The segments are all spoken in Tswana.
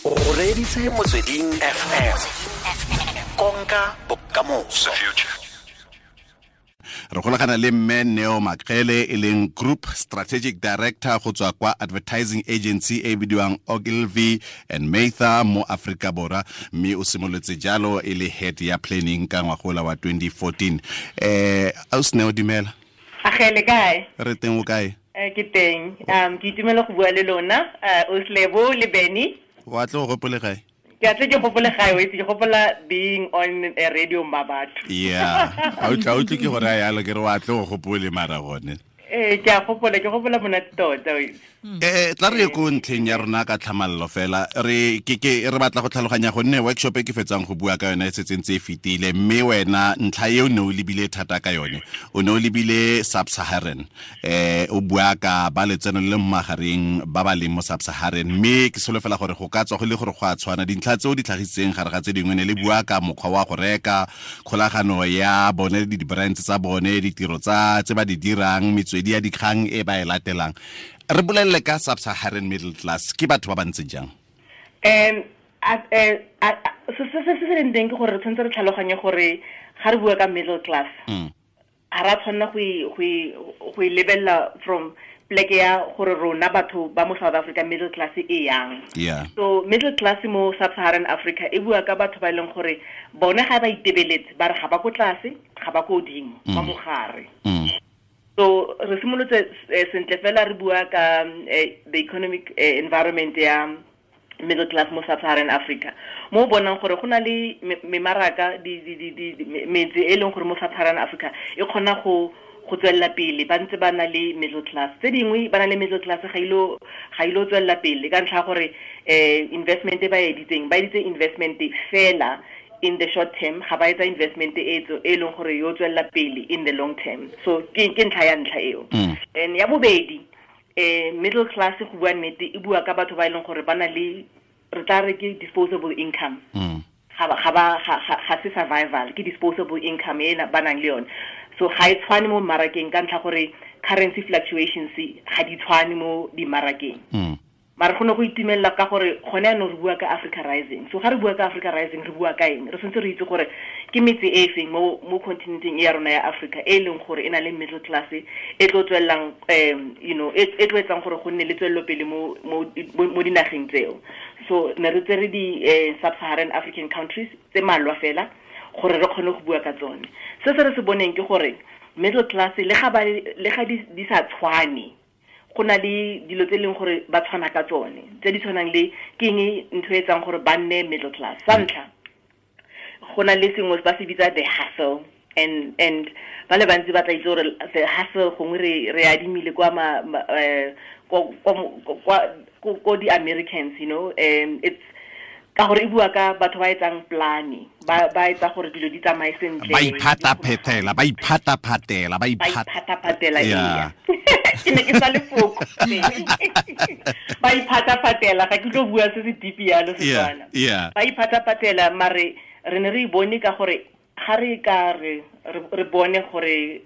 O reditse Motsweding FM, konka bokamoso. Re golagana le mme Neo Makgele, e leng Group Strategic Director go tswa kwa advertising agency e bidiwang Ogilvy and Mather mo Aforika Borwa, mme o simolotse jalo e le head ya planning ka ngwagola wa 2014. Ausi Neo, dumela. Agele, kae? Re teng, o kae? Ke teng. Ke itumela go bua le lona, Oslebo le Benny. Wa tle o gopole gae? Ke a tle ke gopole gae, o itse, ke gopola being on a radio mabatho. Yeah, a utlwe ke gore a yalo ke re wa tle o gopole mara gone. Ee, ke a gopola, ke gopola monate tota, o itse. Tla re ye ko ntlheng ya rona ka tlhamallo fela. Re ke ke re batla go tlhaloganya, gonne workshop e ke fetsang go bua ka yone e setse ntse e fetile, mme wena ntlha eo ne o lebile thata ka yone, o ne o lebile sub-Saharan, o bua ka ba letseno le le mo magareng ba ba leng mo sub-Saharan, mme ke solofela gore go ka tswa go le gore go a tshwana dintlha tseo di tlhagisitseng gare ga tse dingwe ne le bua ka mokgwa wa go reka, kgolagano ya bone le di-brands tsa bone, ditiro tsa tse ba di dirang, metswedi ya dikgang e ba e latelang. Re bolelele ka sub-Saharan middle class, ke batho ba ba ntseng jang? Se se leng teng ke gore re tshwanetse re tlhaloganye gore ga re bua ka middle class, ga ra tshwanela go e lebelela from pleke ya gore rona batho ba mo South Africa middle class e yang. So middle class mo sub-Saharan Africa e bua ka batho ba e leng gore bone ga ba itebeletse, ba re ga ba ko tlase, ga ba ko godimo, ba mogare. So re simolotse sentle fela re bua ka the economic environment ya middle class mo sub-Saharan Africa, mo o bonang gore go na le memaraka, metse e leng gore mo sub-Saharan Africa e kgona go tswelela pele ba ntse ba na le middle class. Tse dingwe ba na le middle class, ga ilo tswelela pele ka ntlha ya gore investment e ba editseng, ba editse investment fela in the short term, ga ba etsa investment e leng gore yo tswelela pele in the long term. So ke ntlha ya ntlha eo. And ya bobedi, middle class, go bua nnete, e bua ka batho ba e leng gore ba na le, re tla re ke disposable income. Ga se survival, ke disposable income e ba nang le yone. So ga e tshwane mo mmarakeng ka ntlha gore currency fluctuations ga di tshwane mo dimmarakeng. Mara go ne go itumelela ka gore gone yaanong re bua ka Africa Rising. So ga re bua ka Africa Rising, re bua ka eng? Re tshwanetse re itse gore ke metse e feng mo continenteng e ya rona ya Africa e leng gore e na le middle class e tlo tswelelang, e tlo etsang gore go nne le tswelelopele mo dinageng tseo. So ne re tsere di sub-Saharan African countries tse malwa fela gore re kgone go bua ka tsone. Se se re se boneng ke gore middle class, le ga di sa tshwane, go na le dilo tse e leng gore ba tshwana ka tsone, tse di tshwanang le ke eng, ntho e etsang gore ba nne middle class. Sa ntlha, go na le sengwe ba se bitsa the hustle, and ba le bantsi ba tla itse gore the hustle gongwe re adimile kwa ma, ma, eh, ko ko kwa ko ko di-Americans, it's ka gore e bua ka batho ba etsang plan, ba etsa gore dilo di tsamaye sentle. Ba iphataphetela, ba iphataphatela, ba ba iphataphatela. Ee, ke ne ke sa lefoko ba iphataphatela, ga ke tlo bua se se deep yalo Setswana. Ba iphataphatela, mare re ne re e bone ka gore ga re ka re bone gore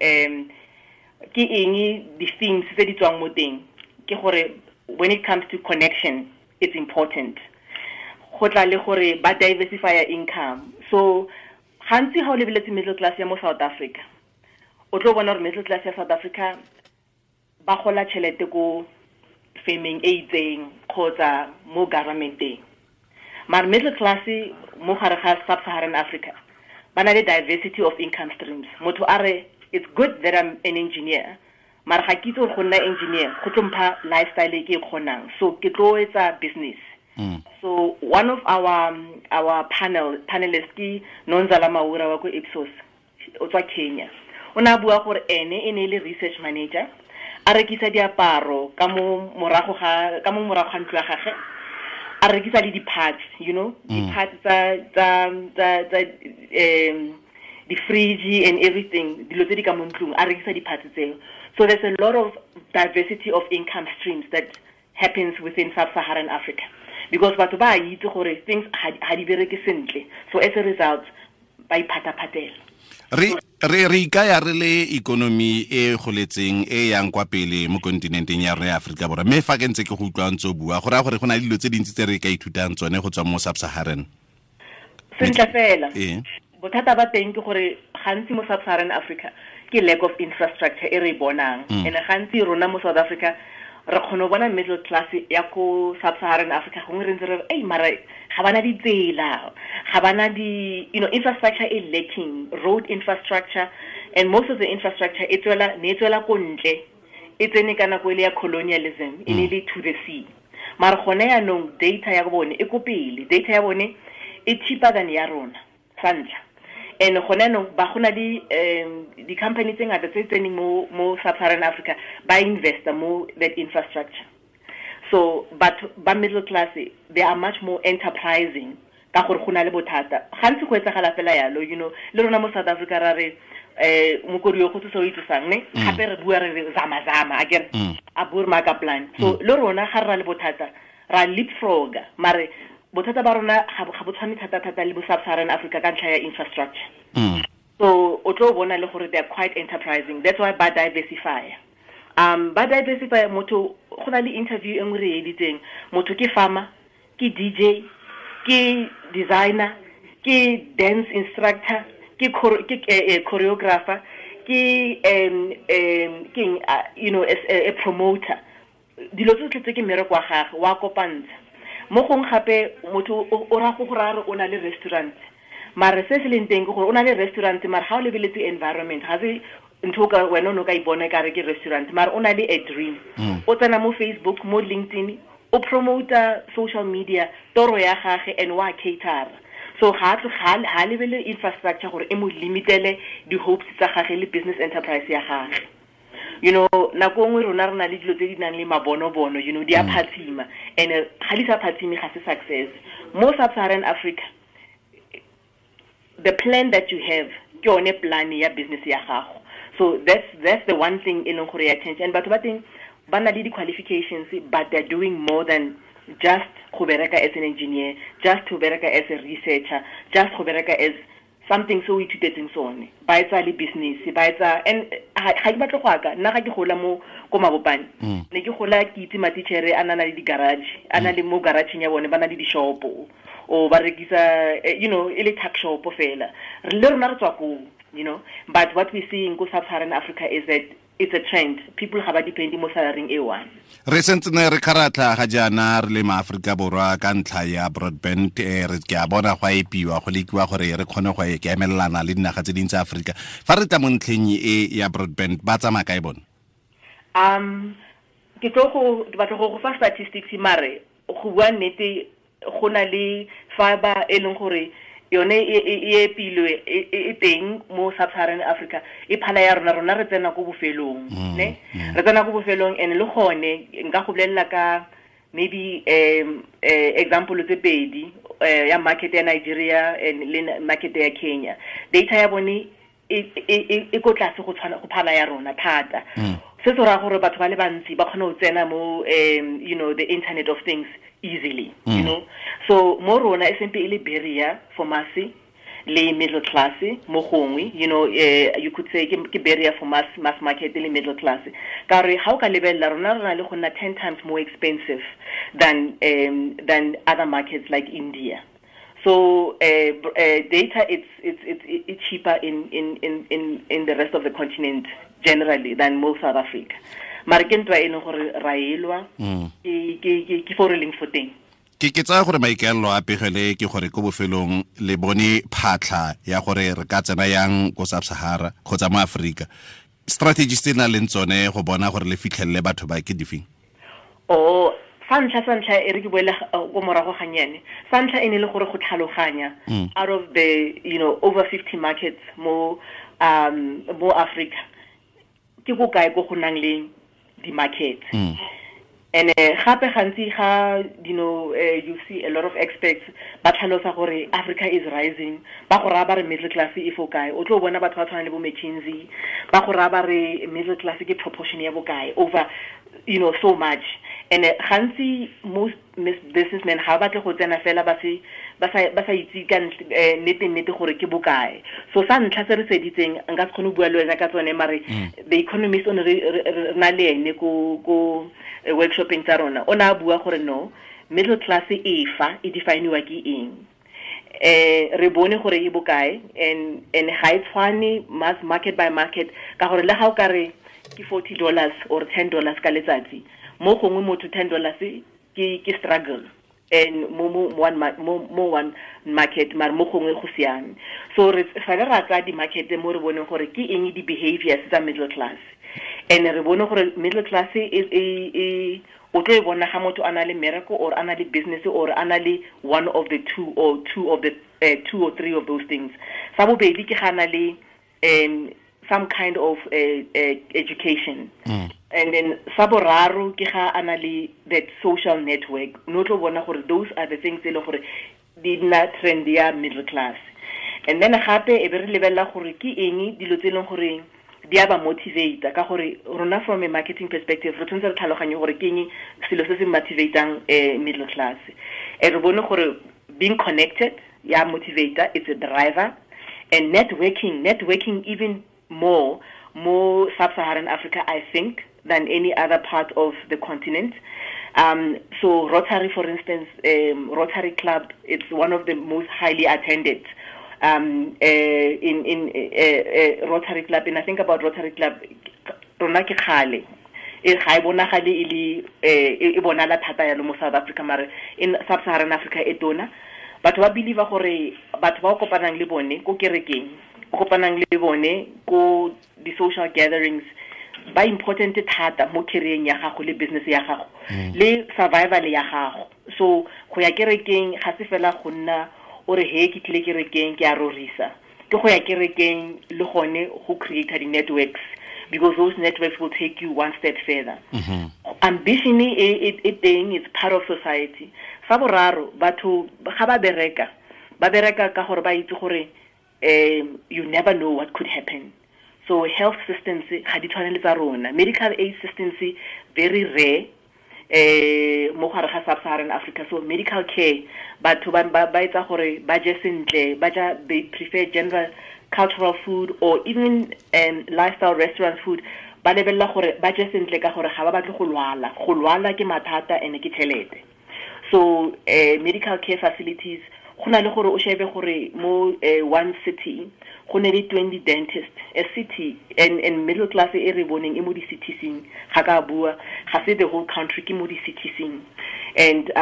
ke eng di-themes tse di tswang mo teng, ke gore when it comes to connection, it's important go tla le gore ba diversify income. So gantsi ga o lebeletse middle class ya mo South Africa, o tlo bona gore middle class ya South Africa ba gola tšhelete ko firmeng e itseng kgotsa mo governmenteng, mare middle class mo gare ga sub-Saharan Africa ba na le diversity of income streams. Motho a re, "It's good that I'm an engineer, mara ga ke itse gore go nna engineer go tlo mpha lifestyle e ke e kgonang, so ke tlo etsa business." So one of our panelists ke Nonzala Maura wa ko Ipsos, o tswa Kenya. O ne a bua gore ene e ne e le research manager, a rekisa diaparo ka mo morago ga ntlo ya gagwe, a rekisa le di-parts, di-parts tsa di-fridge and everything, dilo tse di ka mo ntlong, a rekisa di-parts tseo. So there's a lot of diversity of income streams that happens within sub-Saharan Africa because batho ba a itse gore things ga di bereke sentle, so as a result ba iphataphatela. Re Re ikaya re le ikonomi e goletseng e yang kwa pele mo kontinenteng ya rona ya Aforika Borwa, mme fa ke ntse ke go utlwa ntse o bua go raya gore go na le dilo tse dintsi tse re ka ithutang tsone go tswa mo Sub-Saharan. Sentle fela. Bothata ba teng ke gore gantsi mo Sub-Saharan Africa ke lack of infrastructure e re e bonang. And gantsi rona mo South Africa re kgona go bona middle class ya ko Sub-Saharan Africa, gongwe re ntse re re, ei, mara ga bana ditsela, ga bana di, you know, infrastructure e lacking, road infrastructure, and most of the infrastructure e tswela, ne e tswela ko ntle, e tsene ka nako e le ya colonialism, e ne le to the sea. Mara gone yaanong data ya bone e ko pele, data ya bone e cheaper than ya rona, sa ntlha. And gone yaanong ba go na le di-company tse ngata tse tseneng mo Sub-Saharan Africa, ba investa mo that infrastructure. So but ba middle class, they are much more enterprising ka gore go na le bothata. Gantsi go etsagala fela yalo, you know, le rona mo South Africa ra re, mokodi yo go tsosa o itsosang, ne? Gape re bua re re zama zama, akere? A bua re maka plan. So le rona ga re na le bothata, ra leapfroga, mare bothata ba rona ga bo tshwane thata thata le bo Sub-Saharan Africa ka ntlha ya infrastructure. So o tlo bona le gore they are quite enterprising. That's why ba diversify. Ba diversify motho, go na le interview e nngwe re e editseng, motho ke farmer, ke DJ, ke designer, ke dance instructor, ke choreographer, ke ke, you know, as a promoter. Dilo tsotlhe tse ke mmereko wa gagwe, wa kopantsha. Mo gongwe gape motho o ra go go raya re o na le restaurant, mare se se leng teng ke gore o na le restaurant, mare ga o lebeletse environment, ga se ntho o ka wena o ne o ka ipona e kare ke restaurant, mare o na le a dream. O tsena mo Facebook, mo LinkedIn, o promota social media, toro ya gagwe, and wa cater. So ga a tlo, ga a, ga a lebele infrastructure gore e mo limitele di-hopes tsa gagwe le business enterprise ya gagwe. You know, nako nngwe rona re na le dilo tse di nang le mabonobono, you know, di a phatsima, and ga di sa phatsime ga se success. Mo Sub-Saharan Africa, the plan that you have ke yone plan ya business ya gago. So that's the one thing e leng gore ya change. And batho ba teng ba na le di-qualifications, but they're doing more than just go bereka as an engineer, just go bereka as a researcher, just go bereka as something so ithutetseng sone. Ba etsa le business, ba etsa, and ga ke batle go aka, nna ga ke gola mo ko Mabopane, ne ke gola ke itse matitjhere a na le di-garage, a na le mo garage-eng ya bone, ba na le di-shop-o, o ba rekisa, you know, e le tuck shop fela. Le rona re tswa koo, you know, but what we see in ko Sub-Saharan Africa is that it's a trend. People have a depending mo salary e one. Re sentse ne re kgaratlha ga jaana re le maAforika Borwa ka ntlha ya broadband, re ke a bona go a epiwa, go lekiwa gore re kgone go e emelelana le dinaga tse dintsi tsa Aforika. Fa re tla mo ntlheng e ya broadband, ba tsamaya kae bone? Ke tlo go, ke batla go go fa statistics, mare go bua nnete, go na le fiber e leng gore yone e epilwe, e teng mo Sub-Saharan Africa, e phala ya rona, rona re tsena ko bofelong, ne? Re tsena ko bofelong, and le gone nka go bolelela ka maybe, example tse pedi, ya market ya Nigeria and le market ya Kenya. Data ya bone e ko tlase go tshwana go phala ya rona thata. Se se raya gore batho ba le bantsi ba kgona go tsena mo, you know, the internet of things easily, you know. So mo rona e sempe e le barrier for mass le middle class mo gongwe, you know, you could say ke barrier for mass market le middle class. Ka re ha o ka lebella rona re na le go nna 10 times more expensive than other markets like India. So data it's cheaper in the rest of the continent generally than mo South Africa. Mare ke ntwa e leng gore ra elwa, ke fo re leng fo teng. Ke tsaya gore maikaelelo a pegele ke gore ko bofelong le bone phatlha ya gore re ka tsena yang ko Sub-Sahara kgotsa mo Aforika. Strategies tse na leng tsone go bona gore le fitlhelele batho ba ke difeng? Oh, sa ntlha, sa ntlha, e re ke boele ko morago gannyane. Sa ntlha e ne le gore go tlhaloganya out of the, you know, over 50 markets mo Africa, ke ko kae ko go nang le di-markets. And gape gantsi ga, you know, you see a lot of experts ba tlhalosa gore Africa is rising, ba go raya ba re middle class e fo kae. O tlo bona batho ba tshwana le bo McKinsey, ba go raya ba re middle class ke proportion ya bokae over, you know, so much. And gantsi most businessmen ga ba batle go tsena fela ba sa itse ka nnete gore ke bokae. So sa ntlha se re seditseng, nka se kgone go bua le wena ka tsone, mare the economist o ne re na le ene ko workshopeng tsa rona, o ne a bua gore no, middle class e fa e definiwa ke eng. Re bone gore e bokae, and ga e tshwane mass market by market, ka gore le ga o ka re ke $40 or $10 ka letsatsi, mo gongwe motho $10 ke struggle, and mo one market, mare mo gongwe go siame. So re fela ra tsaya di-market mo re boneng gore ke eng di-behaviors tsa middle class, and re bone gore middle class e o tlo e bona ga motho a na le miracle or a na le business or a na le one of the two or two of the two or three of those things. Sa bobedi ke ga na le some kind of education. And then sa boraro ke ga a na le that social network. No tlo bona gore those are the things e leng gore di nna trend ya middle class. And then gape e be re lebella gore ke eng dilo tse e leng gore di a ba motivate, ka gore rona from a marketing perspective re tshwanetse re tlhaloganye gore ke eng selo se se motivatang middle class. E re bone gore being connected ya motivator, it's a driver, and networking even more sub-Saharan Africa, I think, than any other part of the continent. So Rotary, for instance, Rotary Club, it's one of the most highly attended in Rotary Club. And I think about Rotary Club, rona ke kgale, e ga e bonagale e le e bonala thata yalo mo South Africa, mare in sub-Saharan Africa e tona. Batho ba believe gore batho ba o kopanang le bone ko kerekeng, o kopanang le bone ko di-social gatherings, ba important thata mo career ya gago le business ya gago le survival ya gago. So go ya kerekeng ga se fela go nna o re he ke tlile kerekeng ke a rorisa, ke go ya kerekeng le gone go create di-networks, because those networks will take you one step further. Ambition e teng, it's part of society. Sa boraro, batho ga ba bereka ka gore ba itse gore you never know what could happen. So health systems ga di tshwane le tsa rona. Medical aid systems very rare mo gare ga sub-Saharan Africa. So medical care, batho ba etsa gore ba je sentle, ba ja, they prefer general cultural food or even lifestyle restaurant food. Ba lebella gore ba je sentle ka gore ga ba batle go lwala. Go lwala ke mathata ene ke tšhelete. So medical care facilities, go na le gore o shebe gore mo one city go ne le 20 dentists, a city, and middle class e re boneng e mo di-citieseng, ga ka bua ga se the whole country, ke mo di-citieseng. And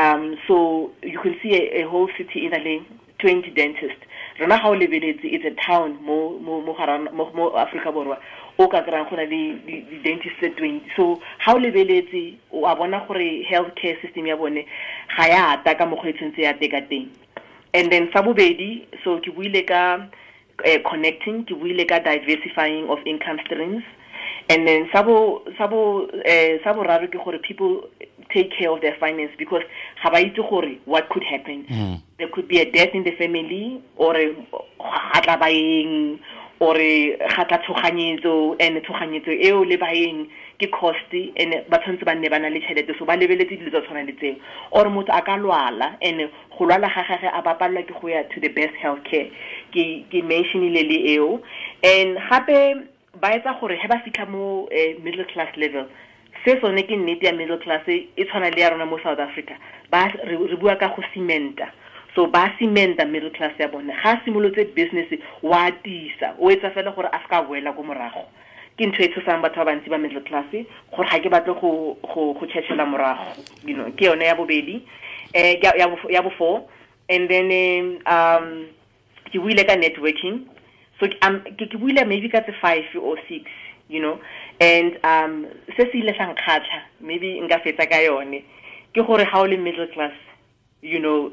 so you can see a whole city in a le 20 dentists. Rona ga o lebeletse, it's a town mo Africa Borwa o ka kry-ang go na le di-dentist tse 20. So ga o lebeletse o a bona gore health care system ya bone ga ya ata ka mokgwa e tshwanetse ya teka teng. And then sa bobedi, so ke buile ka connecting, ke buile ka diversifying of income streams. And then sa boraro ke gore people take care of their finance, because ga ba itse gore what could happen. There could be a death in the family, or ga tla baeng, or ga tla tshoganyetso, and tshoganyetso eo le baeng ke cost, and ba tshwanetse ba nne ba na le tšhelete, so ba lebeletse dilo tsa tshwana le tseo. Or motho a ka lwala, and go lwala ga gagwe a ba palelwa ke go ya to the best health care. Ke mentionile le eo. And gape ba etsa gore he ba fitlha mo middle class level, se sone ke nnete ya middle class e tshwana le ya rona mo South Africa. Ba re bua ka go cementa. So ba cementa middle class ya bone. Ga simolotse business wa tisa, o etsa fela gore a ska boela ko morago. Ke ntho e tshosang batho ba bantsi ba middle class, gore ga ke batle go tšhetšhela morago, you know. Ke yone ya bobedi, ya bo four. And then ke buile ka networking. So ke buile maybe ka tse 5 or 6, you know. And se se ile sa nkgatlha, maybe nka fetsa ka yone, ke gore ga o le middle class, you know,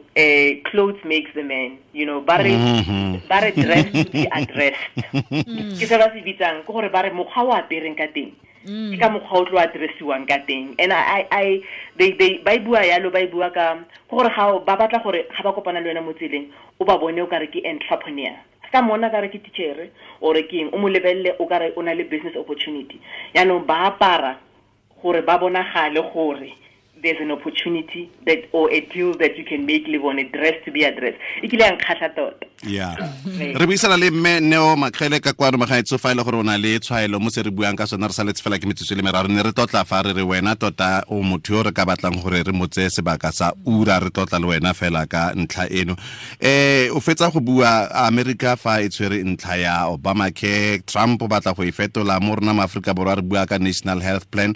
clothes makes the man, you know. Ba re dress to be addressed. Ke se ba se bitsang, ke gore ba re mokgwa o apereng ka teng, ke ka mokgwa o tlo addressiwang ka teng. And I they ba bua yalo, ba bua ka gore ga ba batla gore ga ba kopana le wena mo tseleng, o ba bone o ka re ke entrepreneur. Ka mona ka re ke teacher or ke eng, o mo lebelle o ka re o na le business opportunity. Yaanong ba apara gore ba bonagale gore there's an opportunity that or a deal that you can make live on a dress to be addressed. E kile ya nkgatlha tota. Yeah. Re buisana le mme Neo Makgele ka kwano magaetso fa ile gore o na le tshwaelo mo se re buang ka sona re saletse fela ke metsotso le meraro ne re tlotla fa re re wena tota o motho yo re ka batlang gore re mo tseye sebaka sa ura re tlotla le wena fela ka ntlha eno. O fetsa go bua America fa e tshwere ntlha ya Obamacare, Trump o batla go e fetola mo rona ma Afrika Borwa re bua ka National Health Plan.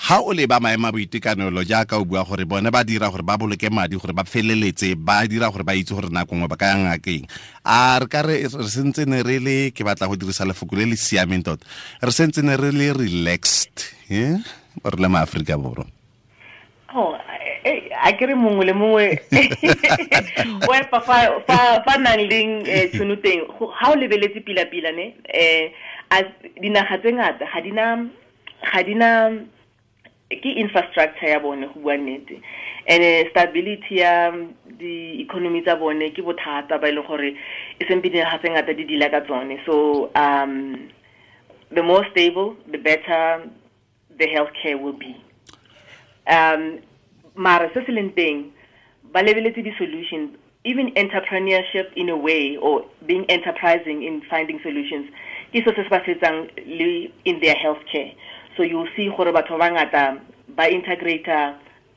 Ha o leba maemo a boitekanelo jaaka o bua gore bone ba dira gore ba boloke madi gore ba feleletse ba dira gore ba itse gore nako nngwe ba ka yang ngakeng, a re ka re sentse ne re le ke batla go dirisa lefoko le le siameng tota, re sentse ne re le relaxed re le ma Afrika Borwa? Oh, a ke re mongwe le mongwe o epa fa nang leng tšhono teng ha o lebeletse pila-pila ne dinaga tse ngata ga dina ke infrastructure ya bone go bua nnete, and stability ya di-economy tsa bone ke bothata ba e leng gore e sempe dinaga tse ngata di dila ka tsone. So the more stable, the better the healthcare will be. Mara se se leng teng ba lebeletse di-solution, even entrepreneurship in a way, or being enterprising in finding solutions ke so se se ba setsang le in their healthcare. So you'll see gore batho ba bangata ba integrate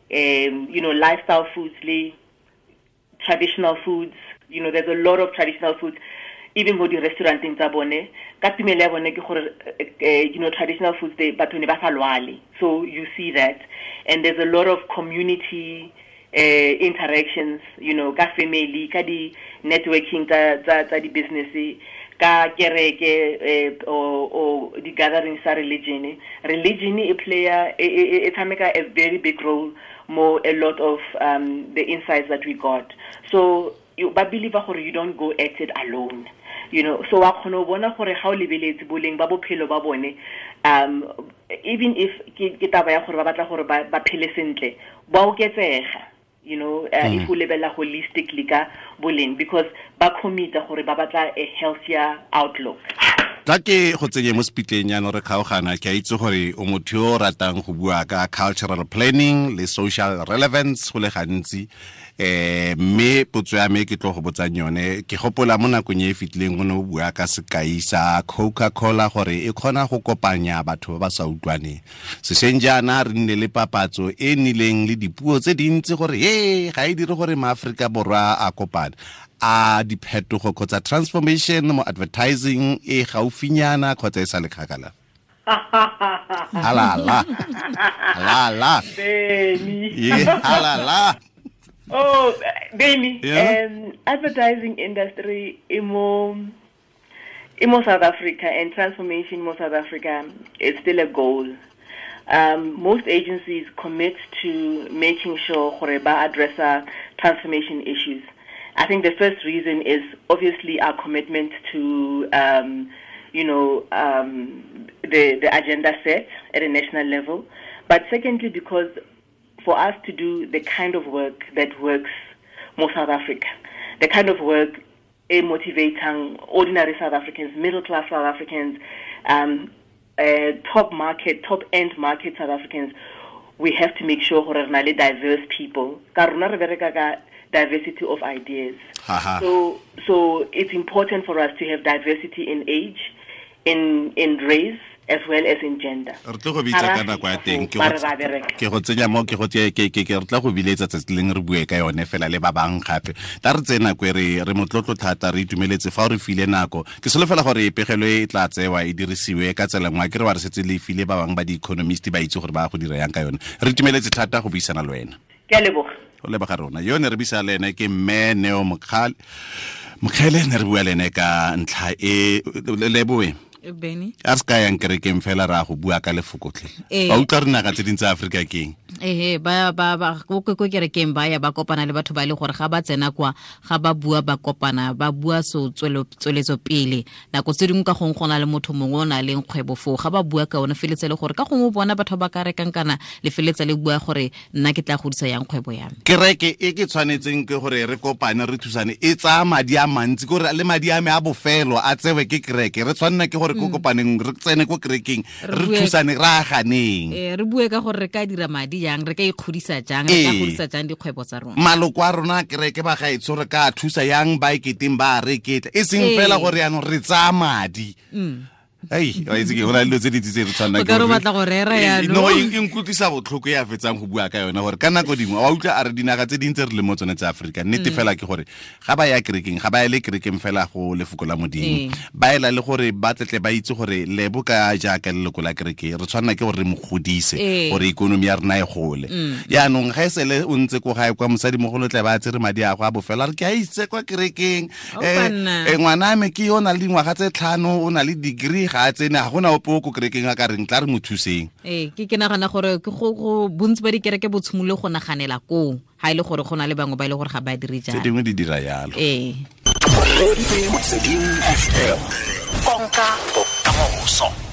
you know, lifestyle foods le traditional foods. You know, there's a lot of traditional foods even mo di-restauranteng tsa bone. Ka tumelo ya bone ke gore you know, traditional foods they batho ne ba sa lwale. So you see that, and there's a lot of community interactions, you know, ka family, ka di networking tsa di business, ka kereke or di gatherings tsa religion. Religion e play e tshameka a very big role mo a lot of the insights that we got. So you ba believe gore you don't go at it alone, you know. So wa kgona go bona gore ga o lebeletse boleng ba bophelo ba bone, even if ke taba ya gore ba batla gore ba phele sentle, ba oketsega, you know, if o lebella holistically ka boleng, because ba commit-a gore ba batla a healthier outlook. Tla ke go tsenye mo sepitleng jaanong re kgaogana, ke a itse gore o motho yo o ratang go bua ka cultural planning le social relevance go le gantsi, mme potso ya me ke tlo go botsang yone, ke gopola mo nakong e e fetileng o ne o bua ka sekai sa Coca-Cola gore e kgona go kopanya batho ba ba sa utlwaneng. Sešweng jaana re nne le papatso e nnileng le dipuo tse dintsi gore ga e dire gore maAforika Borwa a kopane. A diphetogo kgotsa transformation mo advertising e gaufinyana kgotsa e sa le kgakala? Halala. Halala. Benny. Yeah, halala. Oh, Benny. Yeah? Advertising industry imo South Africa and transformation in South Africa is still a goal. Most agencies commit to making sure gore ba address transformation issues. I think the first reason is obviously our commitment to, you know, the agenda set at a national level. But secondly, because for us to do the kind of work that works more South Africa, the kind of work motivating ordinary South Africans, middle-class South Africans, top market, top-end market South Africans, we have to make sure gore re na le diverse people. Ka rona re bereka ka diversity of ideas. So it's important for us to have diversity in age, in race, as well as in gender. Re tlo go bitsa ka nako ya teng, ke go tsenya mo ke go ke re tla go biletsa tsatsi leng re bue ka yone fela le ba bang gape. Ta re tsena nako e re motlotlo thata, re itumeletse fa o re file nako. Ke solofela gore pegelo e tla tsewa e dirisiwe ka tsela nngwe, ke re wa re setse le file ba bang ba di-economist ba itse gore ba go dira yang ka yone. Re itumeletse thata go buisana le wena. Ke a leboga. Go leboga rona. Yo ne re buisa le ene ke mme Neo Mokgele ne re bua le ene ka ntlha e leboe. Benny. A se ka yang kerekeng fela ra go bua ka lefokotlhe. Ba utlwa re naga tse dintsi tsa Afrika keng? Ba ko kerekeng ba ya ba kopana le batho ba le gore ga ba tsena kwa ga ba bua ba kopana ba bua so tsweletso pele. Nako tse dingwe ka gongwe go na le motho mongwe o na leng kgwebo foo, ga ba bua ka one feletse le gore ka gongwe bona batho ba ka rekang kana le feletsa le bua gore nna ke tla godisa yang kgwebo ya me. Kereke e ke tshwanetseng ke gore re kopane re thusane e tsaya madi a mantsi, gore le madi a me a bofelo a tsewe ke kereke. Re tshwanela ke gore re ko kopaneng, re tsene ko kerekeng, re thusane, re aganeng. Re bue ka gore re ka dira madi jang, re ka ikgodisa jang, re ka godisa jang dikgwebo tsa rona. Maloko a rona a kereke ba gaetsho re ka thusa yang ba eketeng ba reketla, e seng fela gore yaanong re tsaya madi. Ei, wa itse ke go na le dilo tse dintsi tse re tshwanang O ka re o batla go rera jaanong. No, e nkutlwisa botlhoko ya fetsang go bua ka yone gore ka nako dingwe wa utlwa a re dinaga tse dintsi re le mo tsone tsa Aforika, nnete fela ke gore ga ba ya kerekeng, ga ba ye le kerekeng fela go lefoko la Modimo, ba ela le gore ba tletle ba itse gore lebo ka jaaka leloko la kereke re tshwanela ke gore re mo godise gore ikonomi ya rona e gole. Yaanong ga e sele o ntse ko gae kwa mosadimogolo tle ba tsere madi a go a bofela, re ke a itse kwa kerekeng, ngwana me ke yo o na le dingwaga tse 5, o na le degree, ga a tsene, ga gona ope o ko kerekeng a ka reng tla re mo thuseng. Ke nagana gore ke go bontsi ba dikereke bo tshimolole go naganela koo, ha e le gore go na le bangwe ba e le gore ga ba dire jalo. Tse dingwe di dira jalo. Konka bokamoso.